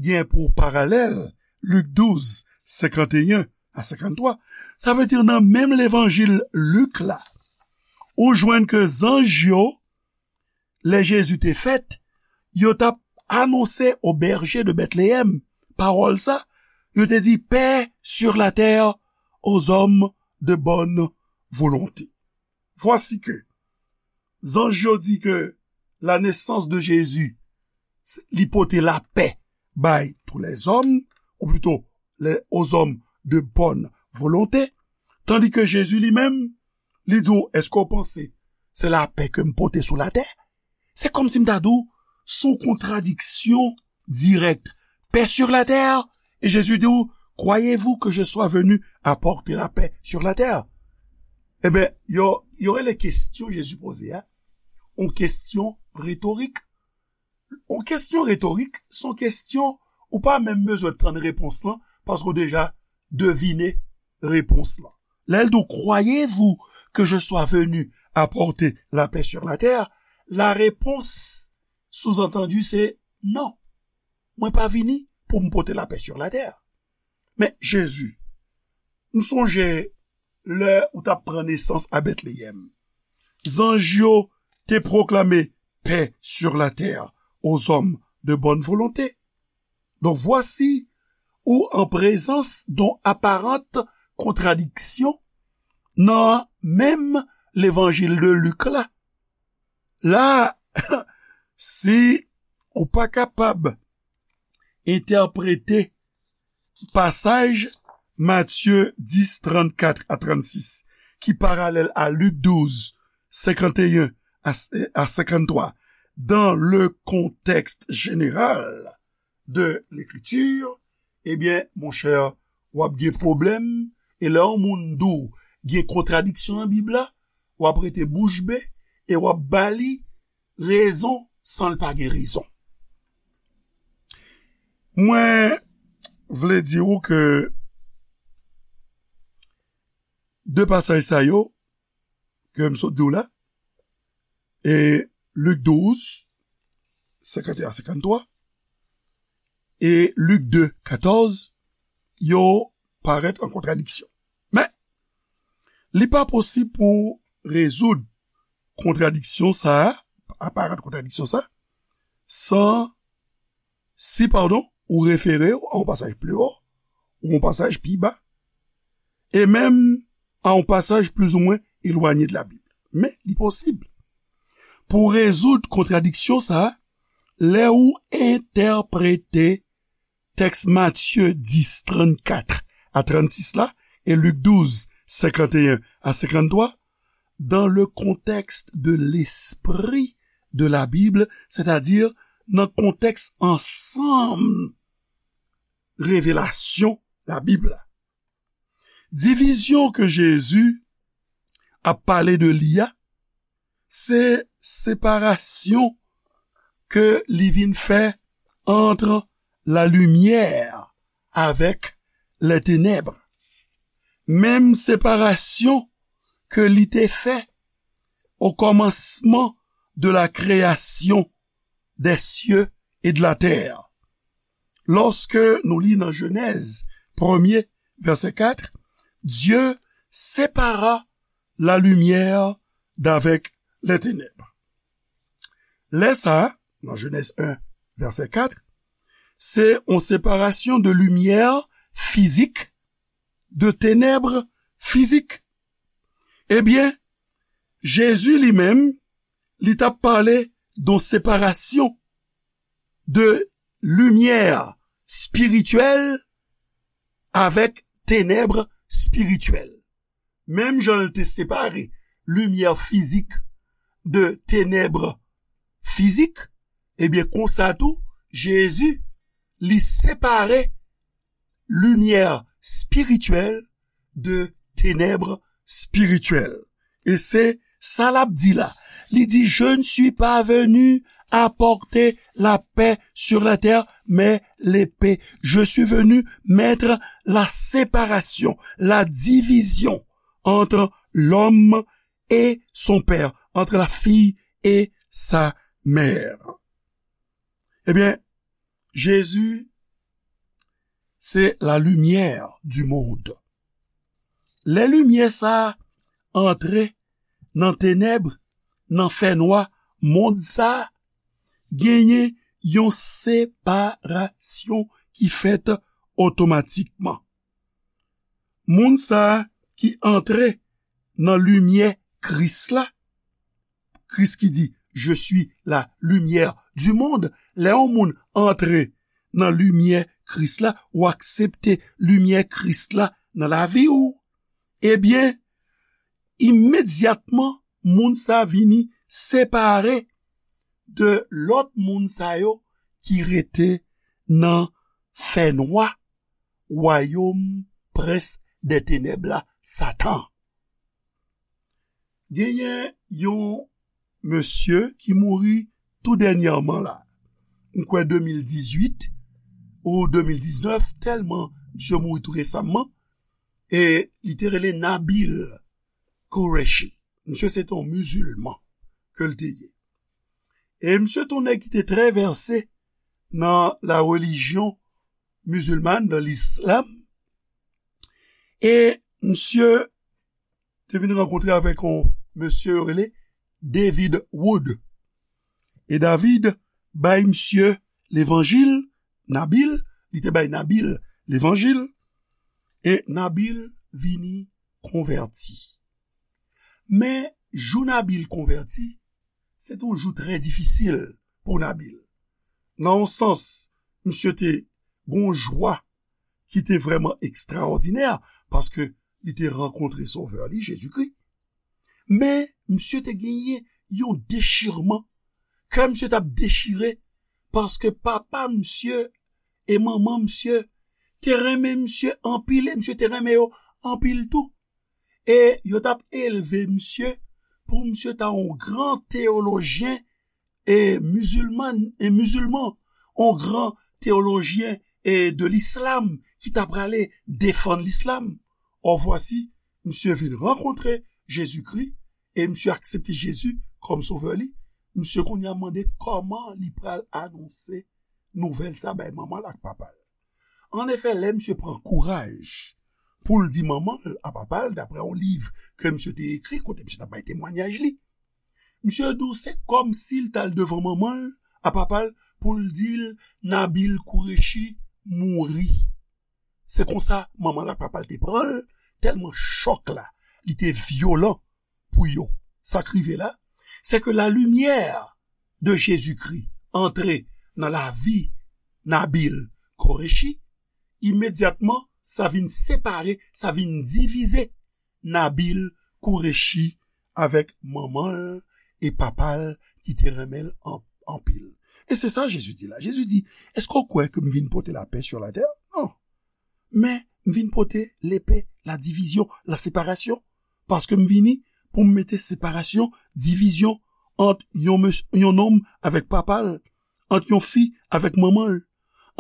gen pou paralèl Lik douz, senkanteyen a senkanntwa. Sa vle di nan menm levanjil Lik la, ou jwenn ke zanj yo, lè Jezi te fèt, yo t ap anonse aux bergers de Bethléem pawòl sa, yo te di, paix sur la terre aux hommes de bonne volonté. Voici que zanj yo di ke la naissance de Jésus, li pote lapè bay tous les hommes, ou plutôt les, aux hommes de bonne volonté, tandi ke Jezi li menm, li di w, èske w panse se lapè ke m pote sou latè? Se kòmsi m ta di w, se yon kontradiksyon dirèk. Paix sur la terre, e Jezi di w, croyez-vous que je sois venu apporter la paix sur la terre? Ebyen, yo, yo rele kesyon Jezi poze a, yon kesyon retorik. Yon kesyon retorik, se yon kesyon ou pa menm bezwen tann repons lan, paske w deja devine repons lan. Lè l di w, croyez-vous que je sois venu apporter la paix sur la terre? La réponse sous-entendue se non. Mwen pa vini pou m pote lapè sur la terre. Men Jezi, m sonje lè ou t ap pran nesans a Betleyèm, zanj yo te pwoklame paix sur la terre aux hommes de bonne volonté. Donc voici ou en présence d'une apparente contradiction nan menm levanjil de Lik la. La, si ou pa kapab entèprete pasaj Matye dis, trannkat a trannsis, ki paralèl a Lik douz, senkanteyen a, a senkanntwa, dans le contexte général de l'écriture, ebyen, monchè, w ap gen pwoblèm, e lè yon moun di w gen kontradiksyon nan Bib la, w ap rete bouch be e w ap ba li rezon san l pa gen rezon. Mwen vle di w ke de pasaj sa yo ke m sot di w la, e Lik douz, senkanteyen a senkanntwa, e Lik de, katòz, yo parèt an kontradiksyon. Men, li pa posib pou rezoud kontradiksyon sa a, aparant kontradiksyon sa a, san, si, padon, ou refere w a yon pasaj pli wo, ou yon pasaj pi ba, e menm a yon pasaj plizoumwen elwanye de la Bib. Men, li posib pou rezoud kontradiksyon sa a, lè ou entèprete tèks Matye dis, trannkat a trannsis la, e Lik douz, senkanteyen a senkanntwa, dans le contexte de l'esprit de la Bible, c'est-à-dire nan kontèks ansanm revelasyon Labib la. Divizyon ke Jezi ap pale de li a, se separasyon ke li vin fè ant la limyè avèk lè tenèb. Menm separasyon ke li te fè o kòmansman de la kreyasyon des cieux et de la terre. Lòske nou li nan Jenèz premye, vèsè kat, Dieu sépara la lumière d'avec les ténèbres. Lè sa a, nan Jenèz en, vèsè kat, se yon separasyon de limyè fizik, de tenèb fizik. Ebyen, Jezi li menm, li t ap pale de yon separasyon de limyè espirityèl avèk tenèb espirityèl. Menm jan l te separe limyè fizik de tenèb fizik, ebyen, konsa tou, Jezi, li separe limyè espirityèl de tenèb espirityèl. E se sa l ap di la. Li di, je ne suis pas venu apporter la paix sur la terre, mais l'épée. Je suis venu mettre la séparation, la division entre l'homme et son père, entre la fille et sa mère. Ebyen, Jezi se la limyè du monde. Lè limyè sa a antre nan tenèb, nan fènwa mond sa a, genyen yon separasyon ki fèt otomatikman. Moun sa a ki antre nan limyè Kris la, Kris ki di, je suis la lumière du monde. Lè yon moun antre nan limyè Kris la, ou aksepte limyè Kris la nan lavi w, ebyen, imedyatman, moun sa vini separe de lòt moun sa yo ki rete nan fènwa, wayòm prens dè tenèb la, Satan. Genyen yon mesye ki mouri tou dènyèman la. M kwè de mil dizuit ou de mil diznèf, tèlman misye mouri tou resamman. E li te rele Nabil Qureshi. Misye se te yon mizilman ke l te ye. E misye te yon nèg ki te trè vèse nan la relijyon mizilman, nan lislam. E misye te vin rankontre avèk yon mesye yo rele David Wood. E David bay misye levanjil, Nabil, li te bay Nabil levanjil, e Nabil vini konvèti. Men, jou Nabil konvèti, se te yon jou trè difisil pou Nabil. Nan yon sans, misye te gon jwa ki te vrèman ekstraòdinè, paske li te rankontre Sovè li, Jezikri. Men, misye te genyen yon dechirman kè misye t ap dechire, paske papa misye e manman misye te renmen misye anpil, e misye te renmen yo anpil tou. E yo t ap elve misye pou misye ta yon gran teyolojyen e mizilman, e mizilman, yon gran teyolojyen e de lislam ki ta prale defann lislam. Or vwasi, misye vin rankontre Jezikri e misye aksepte Jezi kòm sovè li. Misye kounye a mande kòman li pral anonse nouvèl sa bay manman l ak papa l. Annefè, lè misye pran kouraj pou l di manman l a papa l, daprè yon liv ke misye te ekri, kote misye t ap bay temwanyaj li, misye di w se kòmsi l t al devan manman l a papa l pou l di l Nabil Qureshi mouri. Se konsa manman l ak papa l te pran l, tèlman chòk la, li te vyolan pou yo. Sa k rive la, se ke lalimyè de Jezikri antre nan lavi Nabil Qureshi, imedyatman, sa vin separe, sa vin divize Nabil Qureshi avèk manman l e papa l ki te renmen l an- anpil. E se sa Jezi di la. Jezi di, èske w kwè ke m vin pote lapè sou latè? Non. Men, m vin pote lepe, la divizyon, la separasyon. Paske m vini pou m mete separasyon, divizyon ant yon, mes- yon nonm avèk papa l, ant yon fi avèk manman l,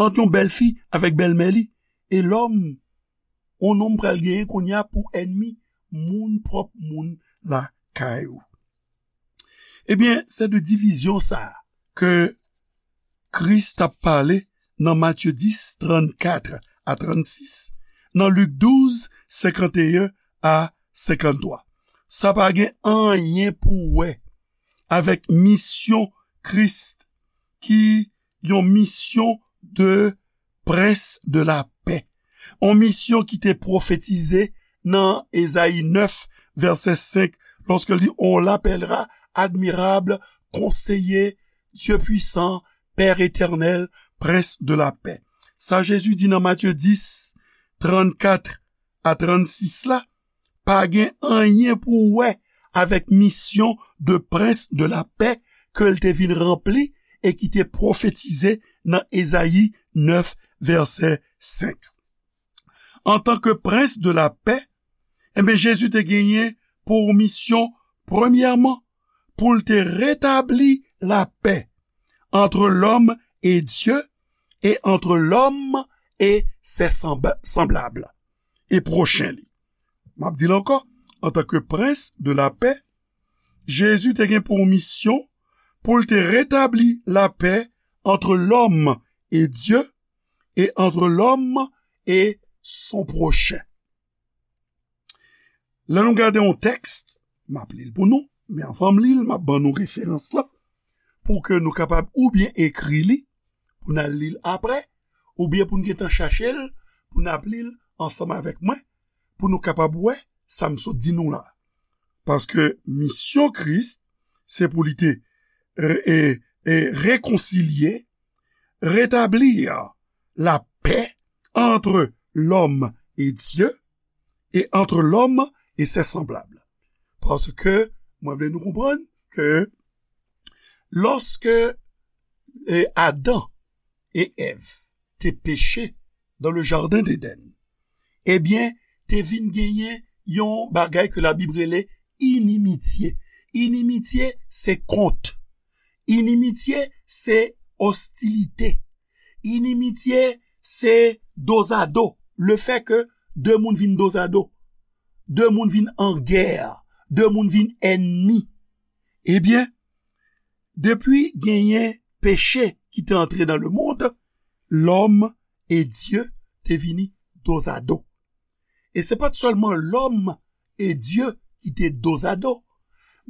ant yon bèlfi avèk bèlmè li. E lòm, yon nonm pral genyen kounye a pou ènmi moun pwòp moun lakay ou. Ebyen, se de divizyon sa a ke Kris t ap pale nan Matye dis, trannkat a trannsis, nan Lik douz, senkanteyen a senkanntwa. Sa pa gen anyen pou wè avèk misyon Kris, ki yon misyon de prens de lapè. Yon misyon ki te pwofetize nan Ezayi nèf, vèsè senk, lòske l di, on l'appellera admirable, conseiller, Dieu puissant, Père éternel, prince de la paix. Sa Jezi di nan Matye dis, trannkat a trannsis la, pa gen anyen pou wè avèk misyon de prens de lapè ke l te vin ranpli e ki te pwofetize nan Ezayi nèf, vèsè senk. Antanke prens de lapè, enben, Jezi te genyen pou misyon, premyèman, pou l te retabli lapè entre l'homme et Dieu et entre l'homme et ses sembla- semblables, e pwochen li. M ap di l ankò, antanke prens de lapè, Jezi te gen pou misyon pou l te retabli lapè entre l'homme et Dieu et entre l'homme et son prochain. Lè nou gade yon tèks, m ap li l pou nou, men anvan m li l, m ap ban nou referans lan, pou ke nou kapab oubyen ekri li, pou n al li l apre, oubyen pou n gentan chache l, pou n ap li l ansanm avèk mwen, pou nou kapab wè sa m sot di nou la. Paske misyon Kris, se pou li te re- e- e rekonsilye, rétablir la paix entre l'homme et Dieu et entre l'homme et ses semblables. Paske, mwen vle nou konprann ke lòske e, Adan e Èv te peche dans le jardin d'Éden, ebyen, te vin genyen yon bagay ke Labib rele inimitye. Inimitye, se kont. Inimitye, se ostilite. Inimitye, se dozado. Le fè ke de moun vin dozado. De moun vin an gè. De moun vin ènmi. Ebyen, depi genyen peche ki te antre nan lemonn, lòm e Dye te vini dozado. E se pa t sèlman lòm e Dye ki te dozado,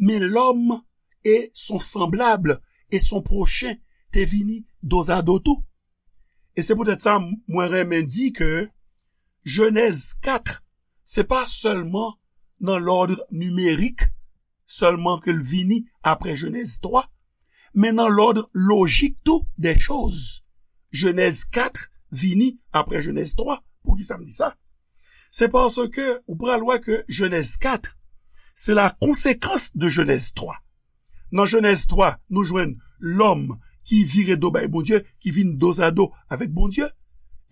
men lòm e son sanblab e son pwochen te vini dozado tou. E se poutèt sa, mwen renmen di ke Jenèz kat, se pa sèlman nan lòd nimerik sèlman ke l vini apre Jenèz twa, men nan lòd lojik tou dè choz. Jenèz kat vini apre Jenèz twa. Poukisa m di sa? Se paske ou pral wè ke Jenèz kat, se la konsekans de Jenèz twa. Nan Jenèz twa, nou jwenn lòm ki vire do bay Bondye, ki vin dozado avèk Bondye.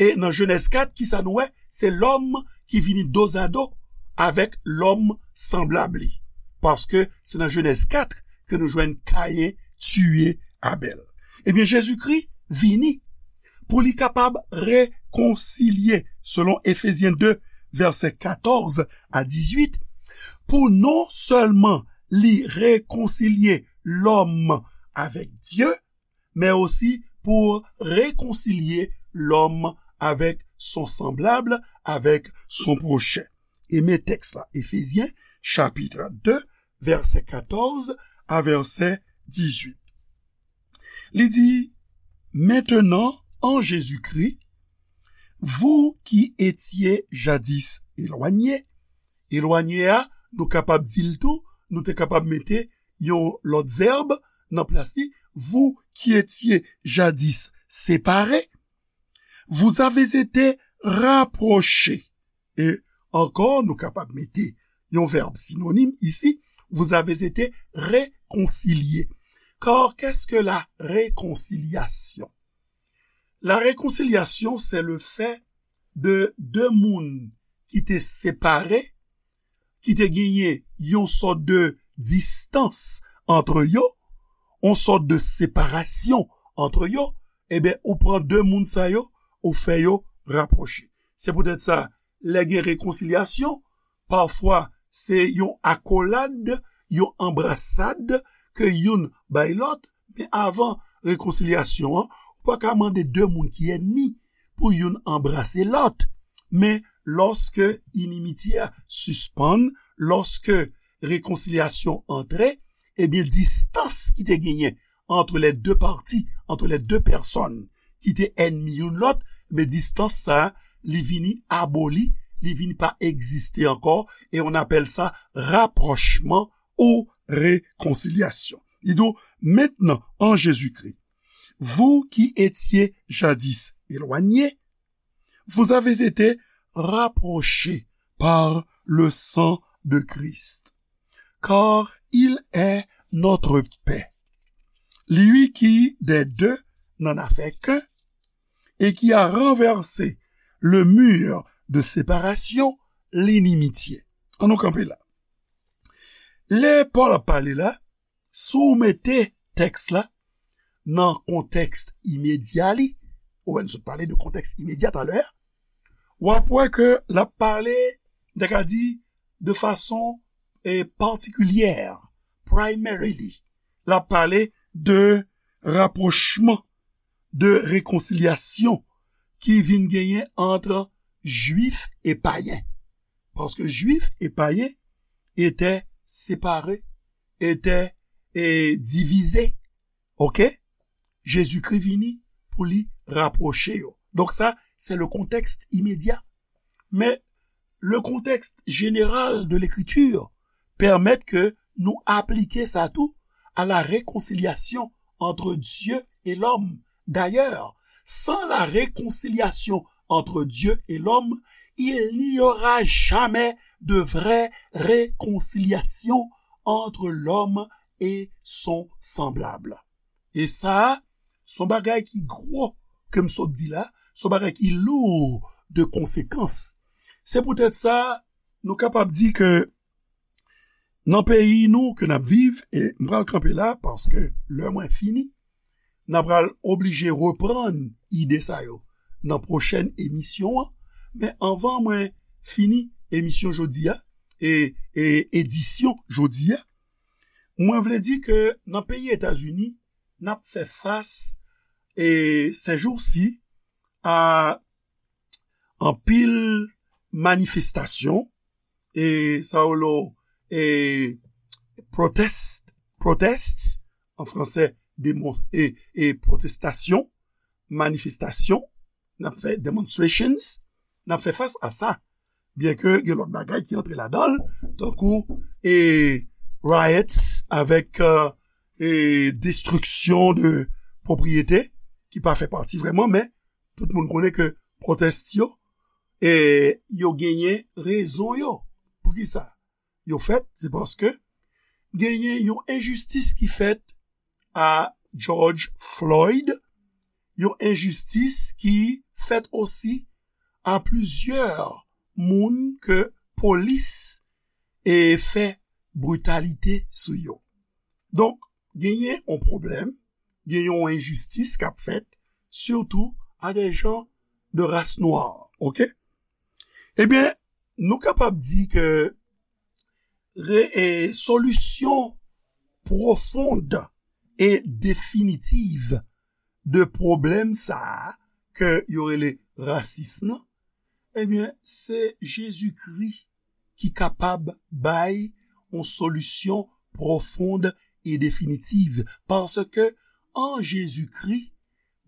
E nan Jenèz kat, kisa nou wè? Se lòm ki vini dozado avèk lòm sanblab li. Paske se nan Jenèz kat ke nou jwenn Kayen tiye Abèl. Ebyen, Jezikri vini pou li kapab rekonsilye, selon Efezyen de, vèsè katòz a dizuit, pou non sèlman li rekonsilye lòm avèk Dye, men osi pou rekonsilye lòm avèk son sanblab, avèk son pwochen. E men tèks la, Efezyen, chapit de, vèsè katòz a vèsè dizuit. Li di, Maintenant, en Jésus-Christ, vous qui étiez jadis éloignés, elwanye a, nou kapab di l tou, nou te kapab mete yon lòt vèb nan plas li, vous qui étiez jadis séparés, vous avez été rapprochés. E ankò, nou kapab mete yon vèb sinonim isi, vous avez été réconciliés. Car qu'est-ce que la réconciliation? La réconciliation, c'est le fait de de moun ki te separe, ki te genyen yon sòt de distans antre yo, yon sòt de separasyon antre yo, ebyen, ou pran de moun sa yo, ou fè yo rapwoche. Se poutèt sa, lè gen rekonsilyasyon, pafwa se yon akolad, yon anbrasad ke youn bay lòt, men avan rekonsilyasyon an, ou pa ka mande de moun ki ènmi pou youn anbrase lòt. Men lòske inimitye a sispann, lòske rekonsilyasyon antre, ebyen, distans ki te genyen entre les deux parties, entre les deux personnes ki te ènmi youn lòt, men distans sa, li vini aboli, li vini pa egziste ankò, e on apèl sa rapwochman ou rekonsilyasyon. Li di w, Maintenant, en Jésus-Christ, vous qui étiez jadis éloignés, vous avez été rapprochés par le sang de Christ, car il est notre paix. Lui qui, des deux, n'en a fait qu'un, et qui a renversé le mur de séparation, l'inimitié. An nou kanpe la. Lè Pòl ap pale la, si w mete tèks la nan kontèks imedya li, ou wè, nou sot pale de kontèks imedya talè, w ap wè ke l ap pale, m ta ka di, de fason, eh, patikilyè, primarily, l ap pale de rapwochman, de rekonsilyasyon ki vin genyen ant jwif e payen. Paske jwif e payen étaient séparés, étaient, eh, divisés. Oke? Jezikri vini pou li rapwoche yo. Donk sa, se le contexte immédiat. Men, le contexte général de l'écriture permet ke nou aplike sa tou à la réconciliation entre Dieu et l'homme. D'ailleurs, sans la réconciliation entre Dieu et l'homme, il n'y aura jamais de vraie réconciliation entre l'homme et son semblable. E sa a, se yon bagay ki gwo ke m sot di la, se yon bagay ki lou de konsekans. Se poutèt sa, nou kapab di ke nan peyi nou ke n ap viv, e m pral kanpe la paske lè mwen fini, n a pral oblije reprann ide sa yo nan pwochèn emisyon an. Men anvan mwen fini emisyon jodi a, e, e edisyon jodi a, mwen vle di ke nan peyi Etazini, n ap fè fas, e, sèjousi, a anpil manifestasyon, e sa yo lo, e protest, protests, an fransè, demon-, e, e protestasyon, manifestasyon, n ap fè demonstrations, n ap fè fas a sa. Byen ke gen lòt bagay ki antre ladan l, tankou, e, riots avèk, e, e, destriksyon de pwopriyete ki pa fè pati vrèman, men tout moun konnen ke pwotès yo, e, yo genyen rezon yo. Poukisa yo fèt? Se paske genyen yon enjistis ki fèt a George Floyd, yon enjistis ki fèt osi a plizyè moun ke polis e fè britalite sou yo. Donk, genyen yon pwoblèm, genyen yon enjistis k ap fèt, sitou a de jan de ras nwa, oke? Ebyen, nou kapab di ke re, e, solisyon pwofond e definitiv de pwoblèm sa a ke yo rele rasism lan, ebyen, se Jezikri ki kapab bay yon solisyon pwofond e definitiv. Paske an Jezikri,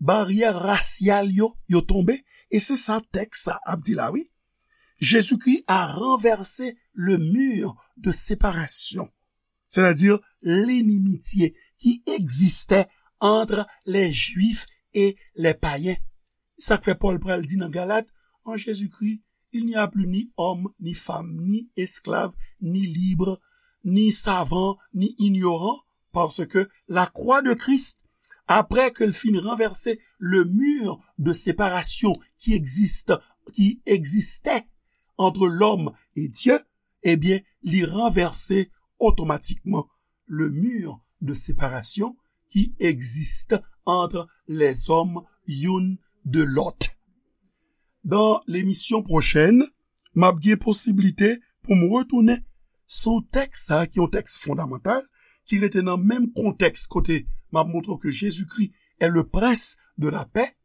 baryè rasyal yo, yo tonbe, e se sa tèks sa ap di la, wi. Jésus-Christ a renversé le mur de séparation, c'est-à-dire l'inimitye ki egziste entre les Juifs et les païens. Sa k fè Pòl pral di nan Galat, en Jésus-Christ, il n'y a plus ni homme, ni femme, ni esclave, ni libre, ni savant, ni ignorant, parce que la croix de Christ, après que l fin renversé le mur de séparation qui existe, qui existait entre l'homme et Dieu, ebyen, li ranvèse otomatikman le mur de séparation qui existe entre les hommes youn de lòt. Dans l'émission prochaine, m ap gen posiblite pou m retounen sou tèks sa a, ki yon tèks fondamantal, ki rete nan menm kontèks kote m ap montre ke Jezikri est le prince de la paix,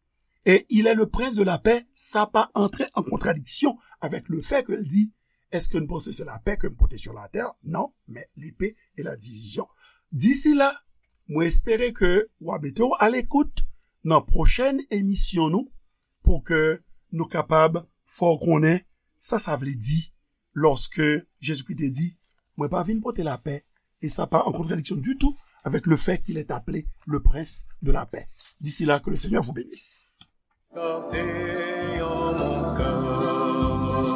et il est le prince de la paix, sa pa antre an kontradiksyon avèk le fè ke l di, èske n panse se lapè ke m pote sou latè? Non, men lepe e la divizyon. Disi la, mwen espere ke w a mete w a lekout nan pwochèn emisyon nou pou ke nou kapab fè w konnen sa sa vle di lòske Jezikri te di, mwen pa vin pote lapè, e sa pa an kontradiksyon ditou avèk le fè qu'il est appelé le prince de la paix. D'ici là, que le Seigneur vous bénisse. Gade yon moun kè